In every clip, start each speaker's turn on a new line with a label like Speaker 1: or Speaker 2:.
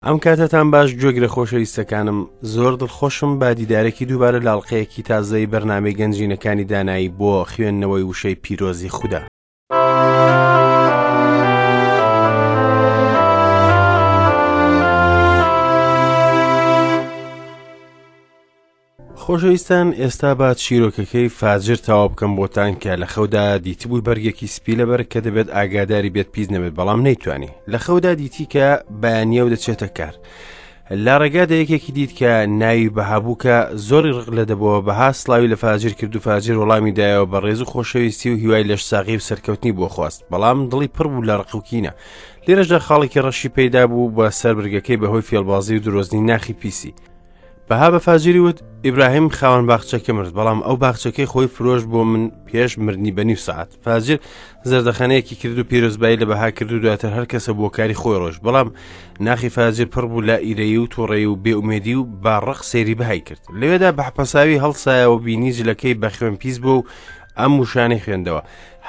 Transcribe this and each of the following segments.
Speaker 1: ئەم کاتەتان باش گوێگرە خۆشەویستەکانم زۆر دڵخۆشم بە دیدارێکی دووبارە لە ئەڵقەیەکی تازەی بەرنامەی گەنجینەکانی دانایی بۆ خوێندنەوەی وشەی پیرۆزی خودا. خۆشەویستان ئێستا با چیرۆکەکەی فاجر تەواو بکەم بۆتان کە لە خەودا دیتبووی بەرگێکی سپی لەبەر کە دەبێت ئاگاداری بێت پیس نەبێت بەڵام نەیتوانی لە خەودا دیتی کە بەیانیە و دەچێتە کار لە ڕێگادا یەکێکی دیت کە ناوی بەهابوو کە زۆری ڕق لە دەبەوە بەها سلاوی لە فاجر کرد و فاجر وەڵامی دایەوە بە ڕێز و خۆشەویستی و هیوای لەش ساغی و سەرکەوتنی بۆ خواست بەڵام دڵی پڕ بوو لە ڕق و کینە لێرەشدا خاڵێکی ڕەشی پەیدا بوو بە سەر برگەکەی بەهۆی فێڵبازی و درۆزنی ناخی پیسی بەها بە فاجری وت، ئیبراهیم خاوەن باخچەکە مرد، بەڵام ئەو باخچەکەی خۆی فرۆشت بۆ من پێش مردنی بە نیو سەعات. فاجر زەردەخەنەیەکی کرد و پیرۆزبایی لە بەها کرد و دواتر هەر کەسە بۆ کاری خۆی ڕۆشت، بەڵام ناخی فاجر پڕ بوو لە ئیرەیی و تووڕەیی و بێئومێدی و بە ڕق سەیری بەهای کرد. لەوێدا بە حەپەساوی هەڵسایەوە بینی جلەکەی بە خوێن پیس بووە و ئەم وشانەی خوێندەوە،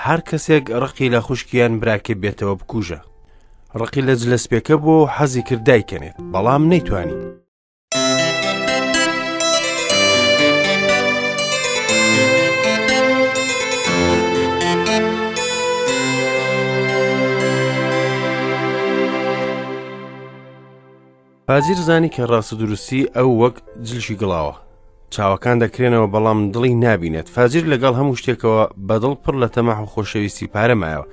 Speaker 1: هەر کەسێک ڕقی لە خوشکی یان براکەی بێتەوە بکوژە. ڕقی لە جلە سپیەکە بووە و حەزی کرد دایکەنێت، بەڵام نەیتوانی. فاجیر زانی کە ڕاست و دروستی ئەو وەک جلشی گڵاوە چاوەکان دەکرێنەوە بەڵام دڵی نابینێت فاجیر لەگەڵ هەموو شتێکەوە بەدڵ پڕ لە تەماح و خۆشەویستی پارە مایەوە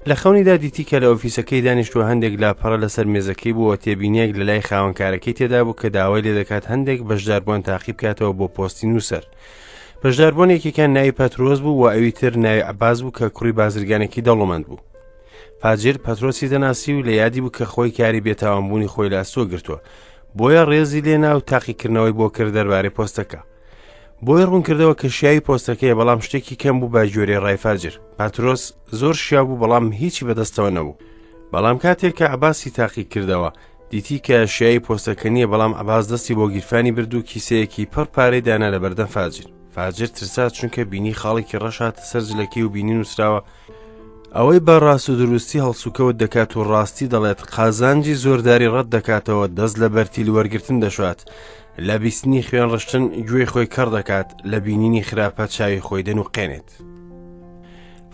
Speaker 1: لە خەونیدا دیتی کە لە ئۆفیسەکەی دانیشتووە هەندێک لاپەڕە لەسەر مێزەکەی بووە تێبینیەک لە لای خاوەنکارەکەی تێدا بوو کە داوای لێ دەکات هەندێک بەشداربووان تاقی بکاتەوە بۆ پۆستی نووسەر بەشداربوون یەکێکیان ناوی پەترۆس بوو و ئەوی تر ناوی عەباس بوو کە کوڕی بازرگانێکی دەوڵەمەند بوو فاجر پەترۆسی دەناسی و لە یادی بوو کە خۆی کاری بێتاوانبوونی خۆی لە ئەستۆ گرتووە بۆیە ڕێزی لێنا و تاقیکردنەوەی بۆ کرد دەربارەی پۆستەکە بۆی ڕوونکردەوە کە شیاوی پۆستەکەیە بەڵام شتێکی کەم بوو بە گوێرەی ڕای فاجر پاترۆس زۆر شیاو بوو بەڵام هیچی بەدەستەوە نەبوو بەڵام کاتێک کە عباسی تاقی کردەوە دیتی کە شیاوی پۆستەکە نییە بەڵام عباس دەستی بۆ گیرفانی برد و کیسەیەکی پڕ پارەی دانا لە بەردەم فاجر فاجر ترسا چونکە بینی خاڵێکی ڕەش هاتە سەر جلەکەی و بینی نووسراوە ئەوەی بە ڕاست و دروستی هەڵسوکەوت دەکات و ڕاستی دەڵێت قازانجی زۆرداری ڕەت دەکاتەوە دەست لە بەرتیل وەرگتن دەشات لە بیستنی خوێن ڕشتن گوێی خۆی کەڕ دەکات لە بینینی خراپە چاوی خۆی دەنوقێنێت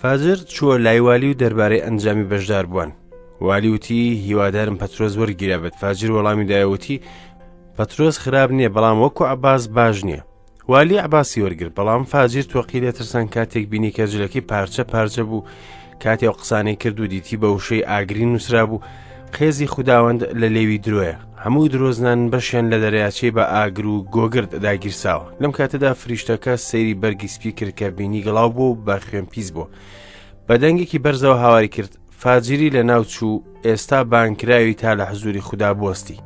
Speaker 1: فاجر چووە لای والی و دەربارەی ئەنجامی بەشدار بووان والی وتی هیوادارم پەترۆس وەرگیرابێت فاجر وەڵامی دایەوتی پەترۆس خراپ نییە بەڵام وەکو عباس باش نییە والی عەباسی وەرگرت، بەڵام فاجیر تۆقی لێ ترسان کاتێک بینی کە جلەکەی پارچە پارچە بوو، کاتێ ئەو قسانەی کرد و دیتی بە وشەی ئاگرین نووسرابوو، قێزی خوداوەند لە لێوی درۆیە، هەموو درۆزنان بەشیان لە دەریاچەی بە ئاگر و گۆگرد داگیرساوە. لەم کاتەدا فریشتەکە سەیری بەرگی سپی کرد کە بینی گڵاو بوو و بە خوێن پیس بوو. بە دەنگێکی بەرزەوە هاواری کرد، فاجیری لە ناو چوو، ئێستا بانگکراوی تا لە حزووری خودا بوەستی.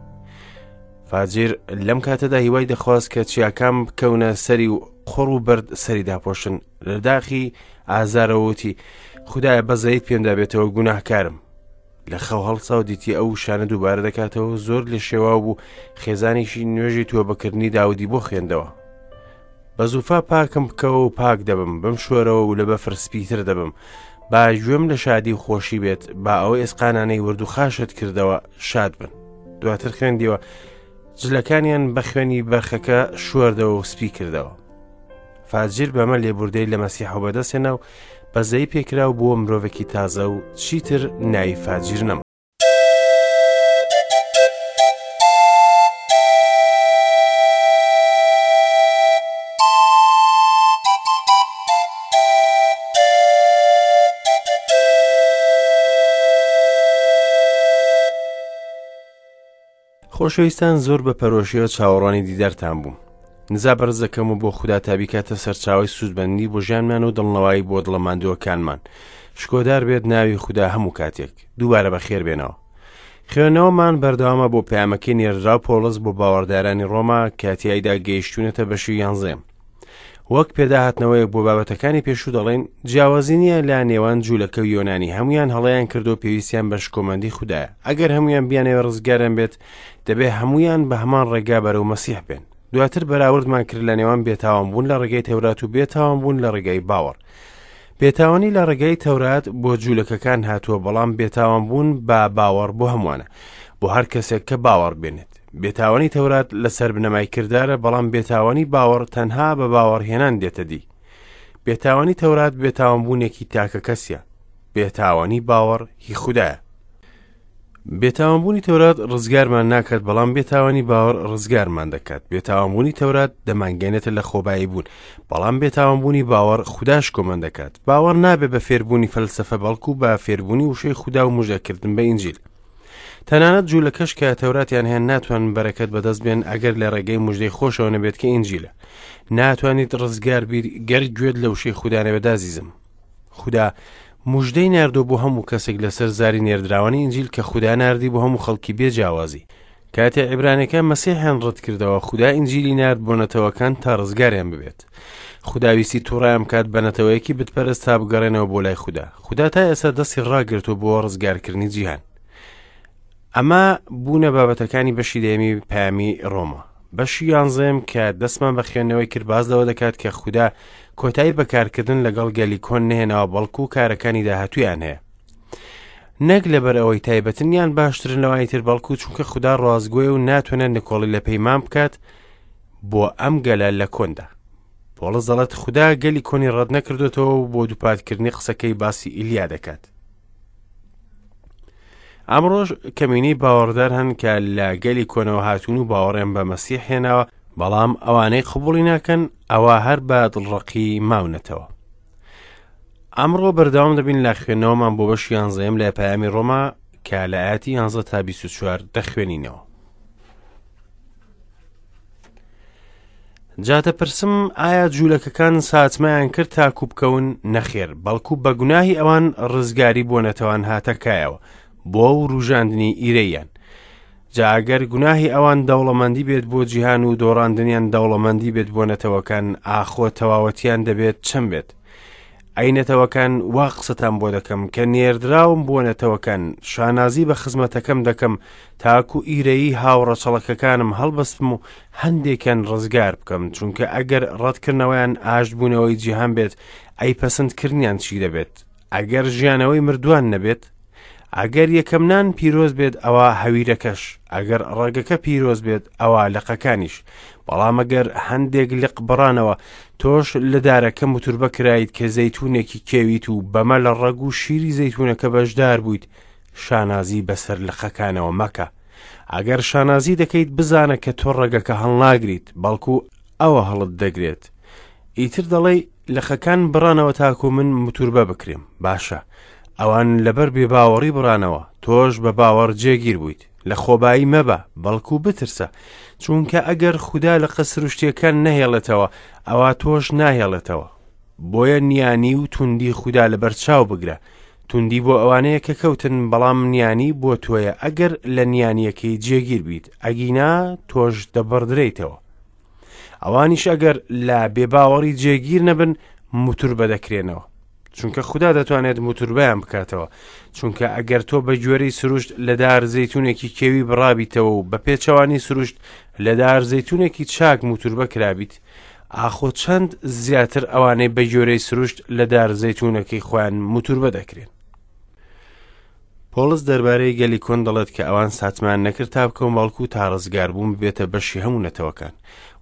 Speaker 1: فاجیر لەم کاتەدا هیوای دەخواست کە چیاکان بکەونە سەری و قوڕ و بەرد سەری داپۆشن لە داخی ئازارەوەتی خدایە بەزەیت پێمدا بێتەوە گوناهکارم لە خەو هەڵسا و دیتی ئەو شانە دووبارە دەکاتەوە زۆر لە شێواو بوو خێزانیشی نوێژی تۆبەکردنی داودی بۆ خوێندەوە بە زوفا پاکم بکەوە و پاک دەبم بم شۆرەوە و لە بەفر سپیتر دەبم با گوێم لە شادی و خۆشی بێت با ئەو ئێسقانانەی ورد و خاشت کردەوە شاد بن دواتر خوێندیوە جلەکانیان بە خوێنی بەرخەکە شۆردەوە و سپی کردەوە فاجیر بەمە لێبوردەی لە مەسیحەوە بەدەستهێنا و بەزەی پێکرا و بووە مرۆڤێکی تازە و چیتر ناوی فاجیر نەما. خۆشەویستان زۆر بە پەرۆشیەوە چاوەڕوانی دیدارتان بووم نزا بەرز دەکەم و بۆ خودا تا بیکاتە سەرچاوەی سوودمەندی بۆ ژیانمان و دڵنەوایی بۆ دڵە ماندووەکانمان شکۆدار بێت ناوی خودا هەموو کاتێک دووبارە بەخێر بێنەوە خوێندنەوەمان بەردەوامە بۆ پەیامەکەی نێردراو پۆڵس بۆ باوەڕدارانی ڕۆما کە تیایدا گەیشتوونەتە بەشی یانزەیەم وەک پێداهاتنەوەیەک بۆ بابەتەکانی پێشوو دەڵێن جیاوازی نییە لە نێوان جوولەکە و یۆنانی هەمویان هەڵەیان کردو پێویستیان بە شکۆمەندی خودایە ئەگەر هەمویان بیانەوێ ڕزگاریان بێت دەبێ هەمویان بە هەمان ڕێگا بەرەو مەسیح بێن دواتر بەراوردمان کرد لە نێوان بێتاوان بوون لە ڕێگەی تەورات و بێتاوان بوون لە ڕێگای باوەڕ بێتاوانی لە ڕێگای تەورات بۆ جوولەکەکان هاتووە بەڵام بێتاوان بوون بە باوەڕ بۆ هەمووانە. بۆ هەر کەسێک کە باوەڕ بێنێت. بێتاوانی تەورات لەسەر بنەمای کردارە، بەڵام بێتاوانی باوەڕ تەنها بە باوەڕهێنان دێتە دی. بێتاوانی تەورات بێتاوانبوونێکی تاکەکەسیە. بێتاوانی باوەڕ هی خودایە. بێتاوانبوونی تەورات ڕزگارمان ناکات، بەڵام بێتاوانی باوەڕ ڕزگارمان دەکات. بێتاوانبوونی تەورات دەمانگەێنێتە لە خۆبایی بوون، بەڵام بێتاوانبوونی باوەڕ خودا شکۆمەند دەکات. باوەڕ نابێ بە فێربوونی فەلسەفە، بەڵکو بە فێربوونی وشەی خودا و مژدەکردن بە ئینجیل. تەنانەت جوولەکەش کە تەوراتیان هەیە ناتوانن بەرەکەت بەدەست بێن ئەگەر لە ڕێگەی مژدەی خۆشەوە نەبێت کە ئینجیلە. ناتوانیت ڕزگار بیت گەر گوێت لە وشەی خودا نەبێت ئازیزم. خودا مژدەی ناردووە بۆ هەموو کەسێک لەسەر زاری نێردراوانی ئینجیل کە خودا ناردی بۆ هەموو خەڵکی بێ جیاوازی. کاتێ عیبرانیەکان مەسیحیان ڕەت کردەوە، خودا ئینجیلی نارد بۆ نەتەوەکان تا ڕزگاریان ببێت. خودا ویستی توڕەیان بکات بە نەتەوەیەکی بتپەرست تا بگەڕێنەوە بۆ لای خودا. خودا تا ئێستا دەستی ڕاگرتووە بۆ ڕزگارکردنی جیهان. ئەمە بوونە بابەتەکانی بەشی دەیەمی پەیامی ڕۆما. بەشی یانزەیەم کە دەستمان بە خوێندنەوەی کرد باس لەوە دەکات کە خودا کۆتایی بە کارکردن لەگەڵ گەلی کۆن نەهێناوە بەڵکو کارەکانی داهاتوویان هەیە. نەک لەبەر ئەوەی تایبەتن یان باشترن لەوانی تر بەڵکو چونکە خودا ڕاستگۆیە و ناتوانێت نکۆڵی لە پەیمان بکات بۆ ئەم گەلە لە کۆندا. پۆڵس دەڵێت خودا گەلی کۆنی ڕەت نەکردوێتەوە و بۆ دووپاتکردنی قسەکەی باسی ئیلیا دەکات. ئەمڕۆش کەمینەی باوەڕدار هەن کە لە گەلی کۆنەوە هاتوون و باوەڕیان بە مەسیح هێناوە، بەڵام ئەوانەی قبوڵی ناکەن ئەوە هەر بە دڵڕەقی ماونەتەوە. ئەمڕۆ بەردەوام دەبین لە خوێندنەوەمان بۆ بەشی یانزەیەم لە پەیامی ڕۆما کە لە ئاەتی 11 تا 24 دەخوێنینەوە. جا دەپرسم ئایا جوولەکەکان ساتمەیان کرد تاکو بکەون؟ نەخێر، بەڵکو بە گوناهی ئەوان ڕزگاری بۆ نەتەوان هاتە کایەوە بۆ وروژاندنی ئیرەییان. جا ئەگەر گوناهی ئەوان دەوڵەمەندی بێت بۆ جیهان و دۆڕاندنیان دەوڵەمەندی بێت بۆ نەتەوەکان، ئاخۆ تەواوەتیان دەبێت چەند بێت؟ ئەی نەتەوەکان وا قسەتان بۆ دەکەم کە نێردراوم بۆ نەتەوەکان، شانازی بە خزمەتەکەم دەکەم تاکو ئیرەیی هاوڕەچەڵەکەکانم هەڵبەستم و هەندێکیان ڕزگار بکەم، چونکە ئەگەر ڕەتکردنەوەیان ئاشتبوونەوەی جیهان بێت، ئەی پەسەندکردنیان چی دەبێت؟ ئەگەر ژیانەوەی مردووان نەبێت؟ ئەگەر یەکەم نان پیرۆز بێت ئەوا هەویرەکەش، ئەگەر ڕەگەکە پیرۆز بێت ئەوا لقەکانیش. بەڵام ئەگەر هەندێک لق بڕانەوە، تۆش لە دارەکە موتوربە کرایت کە زەیتونێکی کێویت و بەمە لە ڕەگ و شیری زەیتونەکە بەشدار بوویت، شانازی بەسەر لقەکانەوە مەکە. ئەگەر شانازی دەکەیت بزانە کە تۆ ڕەگەکە هەڵناگریت، بەڵکو ئەوە هەڵت دەگرێت. ئیتر دەڵێی لقەکان بڕانەوە تاکو من موتوربە بکرێم. باشە، ئەوان لەبەر بێباوەڕی بڕانەوە، تۆش بە باوەڕ جێگیر بوویت. لە خۆبایی مەبە، بەڵکو بترسە. چونکە ئەگەر خودا لقە سروشتییەکان نەهێڵێتەوە، ئەوا تۆش ناهێڵێتەوە. بۆیە نیانی و توندی خودا لەبەرچاو بگرە. توندی بۆ ئەوانەیە کە کەوتن، بەڵام نیانی بۆ تۆیە ئەگەر لە نیانییەکەی جێگیر بیت، ئەگینا تۆش دەبڕدرێیتەوە. ئەوانیش ئەگەر لە بێباوەڕی جێگیر نەبن موتوربە دەکرێنەوە چونکە خودا دەتوانێت موتوربەیان بکاتەوە چونکە ئەگەر تۆ بە گوێرەی سروشت لە دار زەیتونێکی کێوی بڕابیتەوە و بە پێچەوانی سروشت لە دار زەیتونێکی چاک موتوربە کرابیت ئاخۆ چەند زیاتر ئەوانەی بە گوێرەی سروشت لە دار زەیتونەکەی خۆیان موتوربە دەکرێن پۆڵس دەربارەی گەلی کۆن دەڵێت کە ئەوان ساتمان نەکرد تا بکەون بەڵکو تا ڕزگاربوون ببێتە بەشی هەموو نەتەوەکان.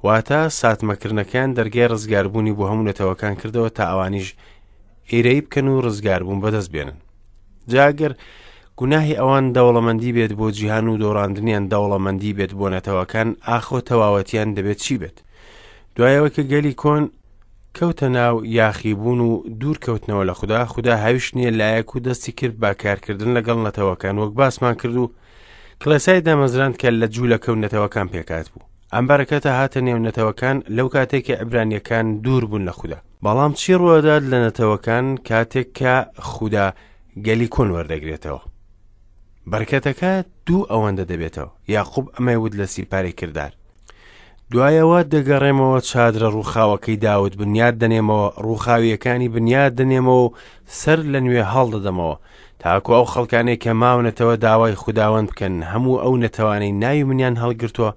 Speaker 1: واتە ساتمەکردنەکەیان دەرگای ڕزگاربوونی بۆ هەموو نەتەوەکان کردەوە تا ئەوانیش ئیرەیی بکەن و ڕزگاربوون بەدەست بێنن. جا گەر گوناهی ئەوان دەوڵەمەندی بێت بۆ جیهان و دۆڕاندنیان دەوڵەمەندی بێت بۆ نەتەوەکان، ئاخۆ تەواوەتیان دەبێت چی بێت؟ دوای ئەوەی کە گەلی کۆن کەوتە ناو یاخیبوون و دوور کەوتنەوە لە خودا، خودا هاویشتنیە لایەک و دەستی کرد بە کارکردن لەگەڵ نەتەوەکان وەک باسمان کرد و کڵێسای دامەزراند کە لە جوولەکە و نەتەوەکان پێکهات بوو. ئەم بەرەکەتە هاتە نێو نەتەوەکان لەو کاتێک کە عیبرانیەکان دوور بوون لە خودا. بەڵام چی ڕوودات لە نەتەوەکان کاتێک کە خودا گەلی کۆن وەردەگرێتەوە؟ بەرکەتەکە دوو ئەوەندە دەبێتەوە. یاقوب ئەمەی وت لە سیپارەی کردار. دوایەوە دەگەڕێمەوە چادرە ڕووخاوەکەی داود بنیاد دەنێمەوە، ڕووخاوییەکانی بنیاد دەنێمەوە و سەر لە نوێ هەڵدەدەمەوە، تاکو ئەو خەڵکانەی کە ماونەتەوە داوای خوداوەند بکەن، هەموو ئەو نەتەوانەی ناوی منیان هەڵگرتووە،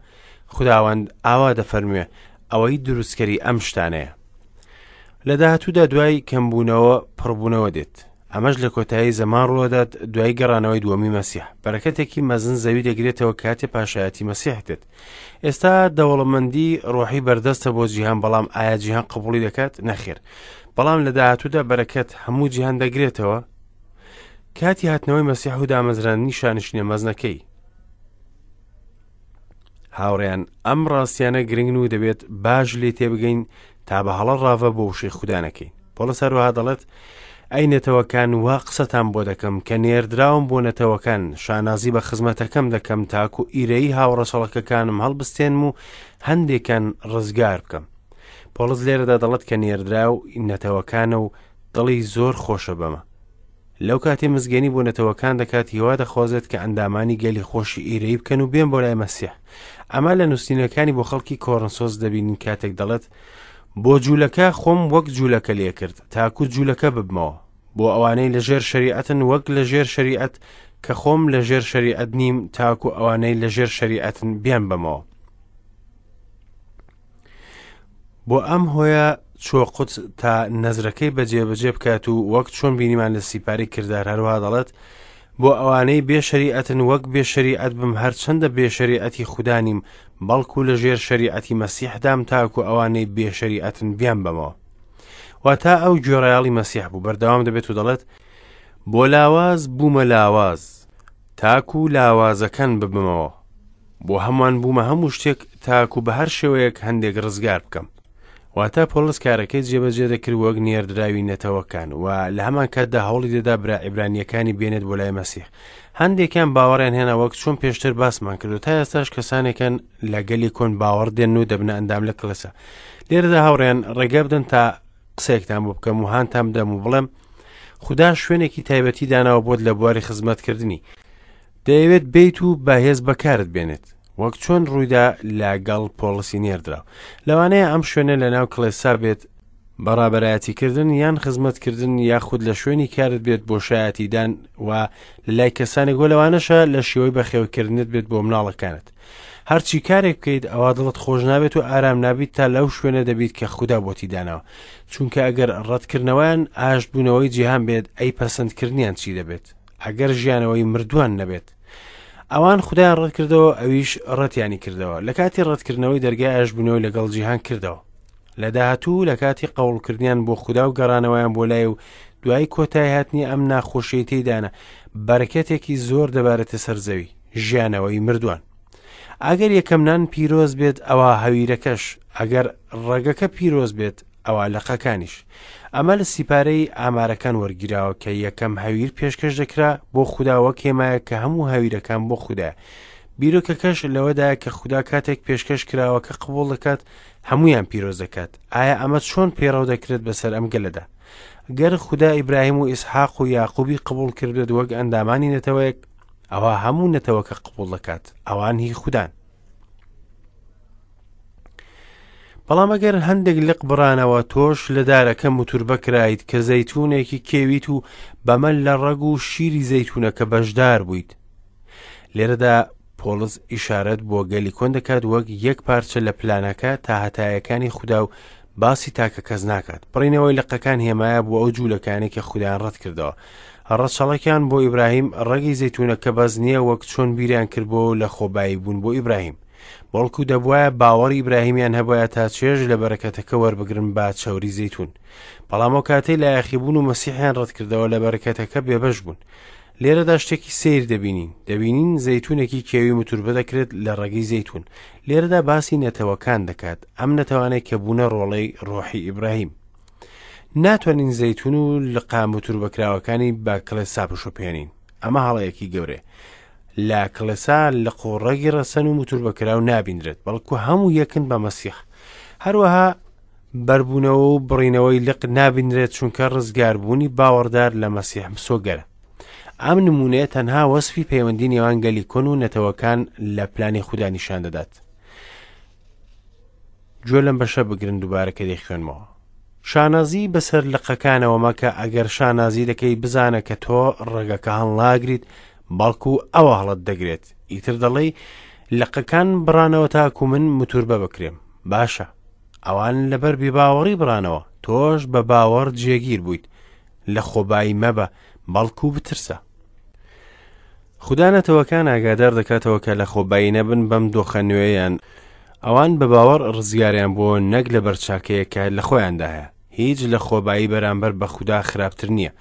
Speaker 1: خوداوەند ئاوا دەفەرموێ، ئەوەی دروستکەری ئەم شتانەیە. لە داهاتوودا دوای کەمبوونەوە پڕبوونەوە دێت. ئەمەش لە کۆتایی زەمان ڕوودات دوای گەڕانەوەی دووەمی مەسیح. بەرەکەتێکی مەزن زەوی دەگرێتەوە کاتێ پاشایەتی مەسیح دێت. ئێستا دەوڵەمەندی ڕۆحی بەردەستە بۆ جیهان، بەڵام ئایا جیهان قبوڵی دەکات؟ نەخێر. بەڵام لە داهاتوودا بەرەکەت هەموو جیهان دەگرێتەوە. کاتی هاتنەوەی مەسیح و دامەزراندنی شانشینە مەزنەکەی. هاوڕێیان ئەم ڕاستیانە گرنگن و دەبێت باش لێ تێبگەین تا بە هەڵە ڕاڤە بۆ وشەی خودا نەکەین. پۆڵس هەروەها دەڵێت ئەی نەتەوەکان وا قسەتان بۆ دەکەم کە نێردراوم بۆ نەتەوەکان شانازی بە خزمەتەکەم دەکەم تاکو ئیرەیی هاوڕەچەڵەکەکانم هەڵبستێنم و هەندێکان ڕزگار بکەم. پۆڵس لێرەدا دەڵێت کە نێردراو نەتەوەکانە و دڵی زۆر خۆشە بەمە. لەو کاتەی مزگێنی بۆ نەتەوەکان دەکات هیوا دەخوازێت کە ئەندامانی گەلی خۆشی ئیرەیی بکەن و بێن بۆ لای مەسیح. ئەمە لە نووسینەکانی بۆ خەڵکی کۆرنسۆس دەبینین کاتێک دەڵێت بۆ جوولەکە خۆم وەک جوولەکە لێکرد تاکو جوولەکە ببمەوە بۆ ئەوانەی لە ژێر شەریعەتن وەک لە ژێر شەریعەت کە خۆم لە ژێر شەریعەت نیم تاکو ئەوانەی لە ژێر شەریعەتن بیان بەمەوە. بۆ ئەم هۆیە چووە قودس تا نەزرەکەی بەجێبەجێ بکات و وەک چۆن بینیمان لە سیپاری کردار هەروها دەڵێت بۆ ئەوانەی بێ شەریعەتن وەک بێ شەریعەت بم هەرچەندە بێ شەریعەتی خودا نیم بەڵکو لە ژێر شەریعەتی مەسیحدام تاکو ئەوانەی بێ شەریعەتن بیان بەمەوە. واتا ئەو گوێڕایەڵی مەسیح بوو بەردەوام دەبێت و دەڵێت بۆ لاواز بوومە لاواز تاکو لاوازەکان ببمەوە. بۆ هەمووان بوومە هەموو شتێک تاکو بە هەر شێوەیەک هەندێک ڕزگار بکەم. واتە پۆڵس کارەکەی جێبەجێ دەکرد وەک نێردراوی نەتەوەکان و لە هەمان کاتدا هەوڵی دەدا برا عیبرانییەکانی بێنێت بۆ لای مەسیح. هەندێکیان باوەڕیان هێنا وەک چۆن پێشتر باسمان کرد و تا ئێستاش کەسانێکن لە گەلی کۆن باوەڕ دێن و دەبنە ئەندام لە کڵێسا. لێرەدا هاوڕێیان ڕێگە بدەن تا قسەیەکتان بۆ بکەم و هانتان بدەم و بڵێم خودا شوێنێکی تایبەتی داناوە بۆت لە بواری خزمەتکردنی. دەیەوێت بێیت و بە هێز بەکارت بێنێت وەک چۆن ڕوویدا لە گەڵ پۆڵسی نێردراو. لەوانەیە ئەم شوێنە لە ناو کڵێسا بێت، بە ڕابەرایەتیکردن یان خزمەتکردن یاخود لە شوێنی کارت بێت بۆ شایەتیدان و لە لای کەسانێک و لەوانەشە لە شێوەی بەخێوکردنت بێت بۆ مناڵەکانت. هەرچی کارێک بکەیت ئەوا دڵت خۆش نابێت و ئارام نابیت تا لەو شوێنە دەبیت کە خودا بۆتی داناوە. چونکە ئەگەر ڕەتکردنەوەیان ئاشتبوونەوەی جیهان بێت ئەی پەسەندکردنیان چی دەبێت؟ ئەگەر ژیانەوەی مردووان نەبێت. ئەوان خودایان ڕەتکردەوە ئەویش ڕەتیانی کردەوە. لە کاتی ڕەتکردنەوەی دەرگای ئاشتبوونەوەی لەگەڵ جیهان کردەوە. لە داهاتوو لە کاتی قەوڵکردنیان بۆ خودا و گەڕانەوەیان بۆ لای و دوای کۆتایی هاتنی ئەم ناخۆشیەی تێیدانە بەرەکەتێکی زۆر دەبارێتە سەر زەوی، ژیانەوەی مردووان. ئەگەر یەکەم نان پیرۆز بێت ئەوا هەویرەکەش، ئەگەر ڕەگەکە پیرۆز بێت ئەوا لقەکانیش. ئەمە لە سیپارەی ئامارەکان وەرگیراوە کە یەکەم هەویر پێشکەش دەکرا بۆ خودا وەک هێمایەک کە هەموو هەویرەکان بۆ خودایە. بیرۆکەکەش لەوەدایە کە خودا کاتێک پێشکەش کراوەکە قبوڵ دەکات هەموویان پیرۆز دەکات. ئایا ئەمە چۆن پەیڕەو دەکرێت بەسەر ئەم گەلەدا؟ گەر خودا ئیبراهیم و ئیسحاق و یاقوبی قبوڵ کردبێت وەک ئەندامانی نەتەوەیەک، ئەوا هەموو نەتەوەکە قبوڵ دەکات. ئەوان هی خودان. بەڵام ئەگەر هەندێک لق بڕانەوە تۆش لە دارەکە موتوربە کرایت کە زەیتونێکی کێویت و بەمە لە ڕەگ و شیری زەیتونەکە بەشدار بوویت. لێرەدا پۆڵس ئیشارەت بۆ گەلی کۆن دەکات وەک یەک پارچە لە پلانەکە تا هەتایەکانی خودا و باسی تاکە کەس ناکات. بڕینەوەی لقەکان هێمایە بۆ ئەو جوولەکانەی کە خودایان ڕەت کردەوە. ڕەچەڵەکیان بۆ ئیبراهیم ڕەگی زەیتونەکە بەس نییە وەک چۆن بیریان کردبووەوە لە خۆبایی بوون بۆ ئیبراهیم. بەڵکو دەبوایە باوەڕی ئیبراهیمیان هەبوایە تا چێژ لە بەرەکەتەکە وەربگرن بە چەوری زەیتون. بەڵام ئەو کاتەی لە یاخیبوون و مەسیحیان ڕەتکردەوە لە بەرەکەتەکە بێبەش بوون. لێرەدا شتێکی سەیر دەبینین. دەبینین زەیتونێکی کێوی متوربە دەکرێت لە ڕەگی زەیتون. لێرەدا باسی نەتەوەکان دەکات، ئەم نەتەوانەی کە بوونە ڕۆڵەی ڕۆحی ئیبراهیم. ناتوانین زەیتون و لقە متوربەکراوەکانی بە کڵێسا بشوبهێنین. ئەمە هەڵەیەکی گەورەیە. لە کڵێسا لق و ڕەگی ڕەسەن و موتوربەکراو نابینرێت، بەڵکو هەموو یەکن بە مەسیح. هەروەها بەربوونەوە و بڕینەوەی لق نابینرێت چونکە ڕزگاربوونی باوەڕدار لە مەسیح مسۆگەرە. ئەم نموونەیە تەنها وەسفی پەیوەندی نێوان گەلی کۆن و نەتەوەکان لە پلانی خودا نیشان دەدات. گوێ لەم بەشە بگرن دووبارە کە دەیخوێنمەوە. شانازی بەسەر لقەکانەوە مەکە، ئەگەر شانازی دەکەی بزانە کە تۆ ڕەگەکە هەڵناگریت، بەڵکو ئەوە هەڵت دەگرێت. ئیتر دەڵێی لقەکان بڕانەوە تاکو من موتوربە بکرێم. باشە، ئەوان لەبەر بێباوەڕی بڕانەوە، تۆش بە باوەڕ جێگیر بوویت. لە خۆبایی مەبە، بەڵکو بترسە. خودا نەتەوەکان ئاگادار دەکاتەوە کە لە خۆبایی نەبن بەم دۆخە نوێیان، ئەوان بە باوەڕ ڕزگاریان بووە نەک لەبەر چاکەیەک کە لە خۆیاندا هەیە. هیچ لە خۆبایی بەرامبەر بە خودا خراپتر نییە.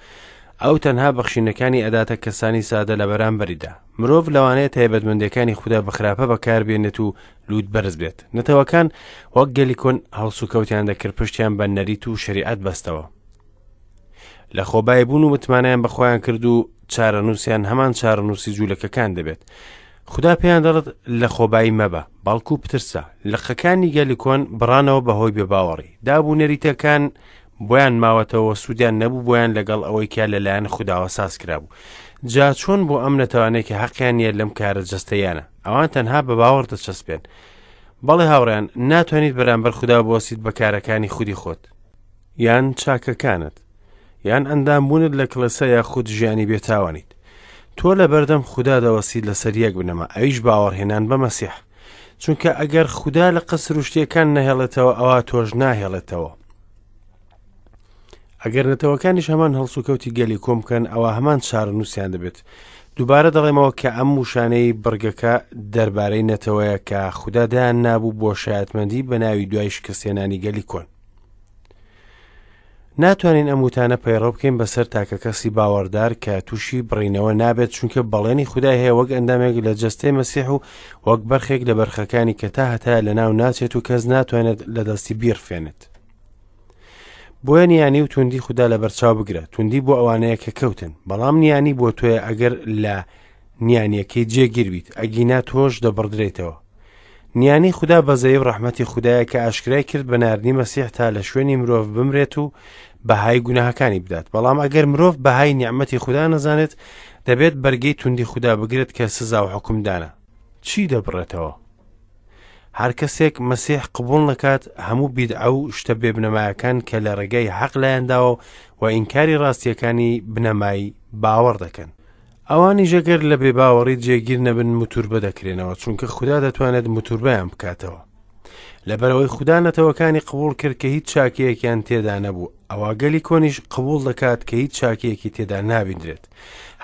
Speaker 1: ئەو تەنها بەخشینەکانی ئەداتە کەسانی سادە لە بەرامبەریدا. مرۆڤ لەوانەیە تایبەتمەندیەکانی خودا بە خراپە بەکاربێنێت و لووت بەرز بێت. نەتەوەکان وەک گەلی کۆن هەڵسوکەوتیان دەکرد پشتیان بە نەریت و شەریعەت بەستەوە. لە خۆبایی بوون و متمانەیان بە خۆیان کرد و چارەنووسیان هەمان چارەنووسی جوولەکەکان دەبێت. خودا پێیان دەڵێت لە خۆبایی مەبە، بەڵکو بترسە. لقەکانی گەلی کۆن بڕانەوە بەهۆی بێباوەڕی. داب و نەریتەکان بۆیان ماوەتەوە سوودیان نەبوو بۆیان لەگەڵ ئەوەی کە لەلایەن خوداوە ساز کرابوو. جا چۆن بۆ ئەم نەتەوانەی کە حەقیان نییە لەم کارە جەستەیانە؟ ئەوان تەنها بە باوەڕ دەچەسپێن. بەڵێ هاوڕێیان، ناتوانیت بەرامبەر خودا بوەستیت بە کارەکانی خودی خۆت. یان چاکەکانت یان ئەندامبوونت لە کڵێسا یاخود ژیانی بێتاوانیت تۆ لە بەردەم خودا دەوەستیت لەسەر یەک بنەما ئەویش باوەڕهێنان بە مەسیح چونکە ئەگەر خودا لە قەسروشتیەکان نەهێڵێتەوە ئەوا تۆش ناهێڵێتەوە ئەگەر نەتەوەکانیش هەمان هەڵسوکەوتی گەلی کۆم بکەن ئەوە هەمان چارەنووسیان دەبێت دووبارە دەڵێمەوە کە ئەم وشانەی بڕگەکە دەربارەی نەتەوەیە کە خودا دایان نابوو بۆ شایەتمەندی بە ناوی دوای شکستێنانی گەلی کۆن ناتوانین ئەم وتانە پەیڕەو بکەین بەسەر تاکەکەسی باوەڕدار کە تووشی بڕینەوە نابێت چونکە بەڵێنی خودای هەیە وەک ئەندامێک لە جەستەی مەسیح و وەک بەرخێک لە بەرخەکانی کە تا هەتا لە ناو ناچێت و کەس ناتوانێت لە دەستی بیڕفێنێت. بۆیە نیانی و توندی خودا لە بەرچاو بگرە توندی بۆ ئەوانەیە کە کەوتن بەڵام نیانی بۆ تۆیە ئەگەر لە نیانیەکەی جێگیر بیت ئەگینا تۆش دەبڕدرێیتەوە. نیانی خودا بەزەیی و ڕەحمەتی خودایە کە ئاشکرای کرد بە ناردنی مەسیح تا لە شوێنی مرۆڤ بمرێت و بەهای گوناهەکانی بدات بەڵام ئەگەر مرۆڤ بەهای نیعمەتی خودا نەزانێت دەبێت بەرگەی توندی خودا بگرێت کە سزا و حکومدانە چی دەبڕێتەوە هەر کەسێک مەسیح قبوڵ نەکات هەموو بیدعە و شتە بێبنەمایەکان کە لە ڕێگای حەق لایانداوە و ئینکاری ڕاستیەکانی بنەمای باوەڕ دەکەن ئەوانیش ئەگەر لە بێباوەڕی جێگیر نەبن موتوربە دەکرێنەوە چونکە خودا دەتوانێت موتوربەیان بکاتەوە لەبەرەوەی خودا نەتەوەکانی قبوڵ کرد کە هیچ چاکەیەکیان تێدا نەبوو ئەوا گەلی کۆنیش قبوڵ دەکات کە هیچ چاکەیەکی تێدا نابیندرێت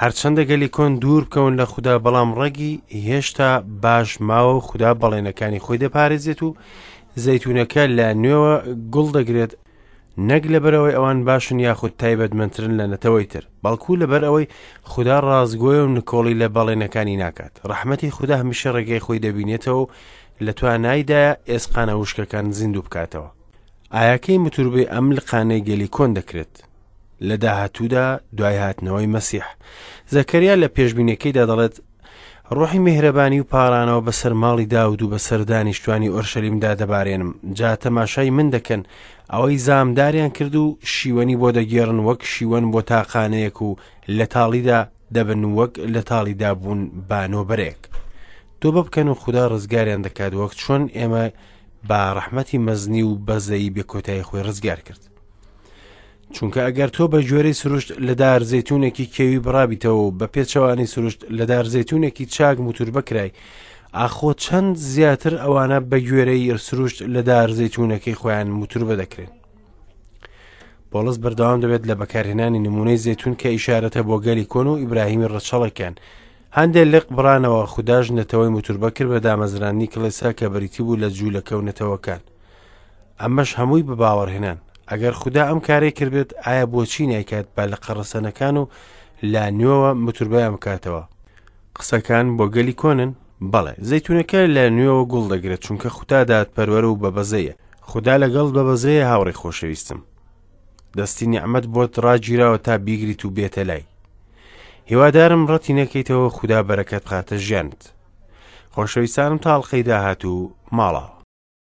Speaker 1: هەرچەندە گەلی کۆن دوور بکەون لە خودا بەڵام ڕەگی هێشتا باش ماوە و خودا بەڵێنەکانی خۆی دەپارێزێت و زەیتونەکە لە نوێوە گوڵ دەگرێت نەک لەبەرئەوەی ئەوان باشن یاخود تایبەتمەندترن لە نەتەوەی تر، بەڵکو لەبەرئەوەی خودا ڕاستگۆیە و نکۆڵی لە بەڵێنەکانی ناکات. ڕەحمەتی خودا هەمیشە ڕێگای خۆی دەبینێتەوە و لە توانایدایە ئێسقانە وشکەکان زیندوو بکاتەوە. ئایا کەی متوربەی ئەم لقانەی گەلی کۆن دەکرێت؟ لە داهاتوودا دوای هاتنەوەی مەسیح. زەکەریا لە پێشبینیەکەیدا دەڵێت، ڕۆحی میهرەبانی و پاڕانەوە بەسەر ماڵی داود و بەسەر دانیشتوانی ئۆرشەلیمدا دەبارێنم جا تەماشای من دەکەن ئەوەی زامداریان کرد و شیوەنی بۆ دەگێڕن وەک شیوەن بۆ تاقانەیەک و لە تاڵیدا دەبن وەک لە تاڵیدا بوون با نۆبەرێک تۆبە بکەن و خودا ڕزگاریان دەکات وەک چۆن ئێمە بە ڕەحمەتی مەزنی و بەزەیی بێکۆتایی خۆی ڕزگار کرد چونکە ئەگەر تۆ بە گوێرەی سروشت لە دار زەیتونێکی کێوی بڕابیتەوە و بە پێچەوانەی سروشت لە دار زەیتونێکی چاک موتوربە کرای ئاخۆ چەند زیاتر ئەوانە بە گوێرەی سروشت لە دار زەیتونەکەی خۆیان موتوربە دەکرێن پۆڵس بەردەوام دەبێت لە بەکارهێنانی نمونەی زەیتون کە ئیشارەتە بۆ گەلی کۆن و ئیبراهیمی ڕەچەڵەکیان هەندێک لق بڕانەوە خوداش نەتەوەی موتوربە کرد بە دامەزراندنی کڵێسا کە بریتی بوو لە جوولەکە و نەتەوەکان ئەمەش هەمووی بە باوەڕهێنان. ئەگەر خودا ئەم کارەی کردبێت، ئایا بۆچی نایکات بە لقە ڕەسەنەکان و لە نوێوە متوربەیان بکاتەوە؟ قسەکان بۆ گەلی کۆنن؟ بەڵێ، زەیتونەکە لە نوێوە گوڵ دەگرێت، چونکە خودا دادپەروەر و بەبەزەیە. خودا لەگەڵت بەبەزەیە هاوڕێی خۆشەویستم. دەستی نیعمەت بۆت ڕاگیراوە تا بیگریت و بێتە لای. هیوادارم ڕەتی نەکەیتەوە خودا بەرەکەت بخاتە ژیانت. خۆشەویستانم تا ئەڵقەی داهاتوو ماڵاوە.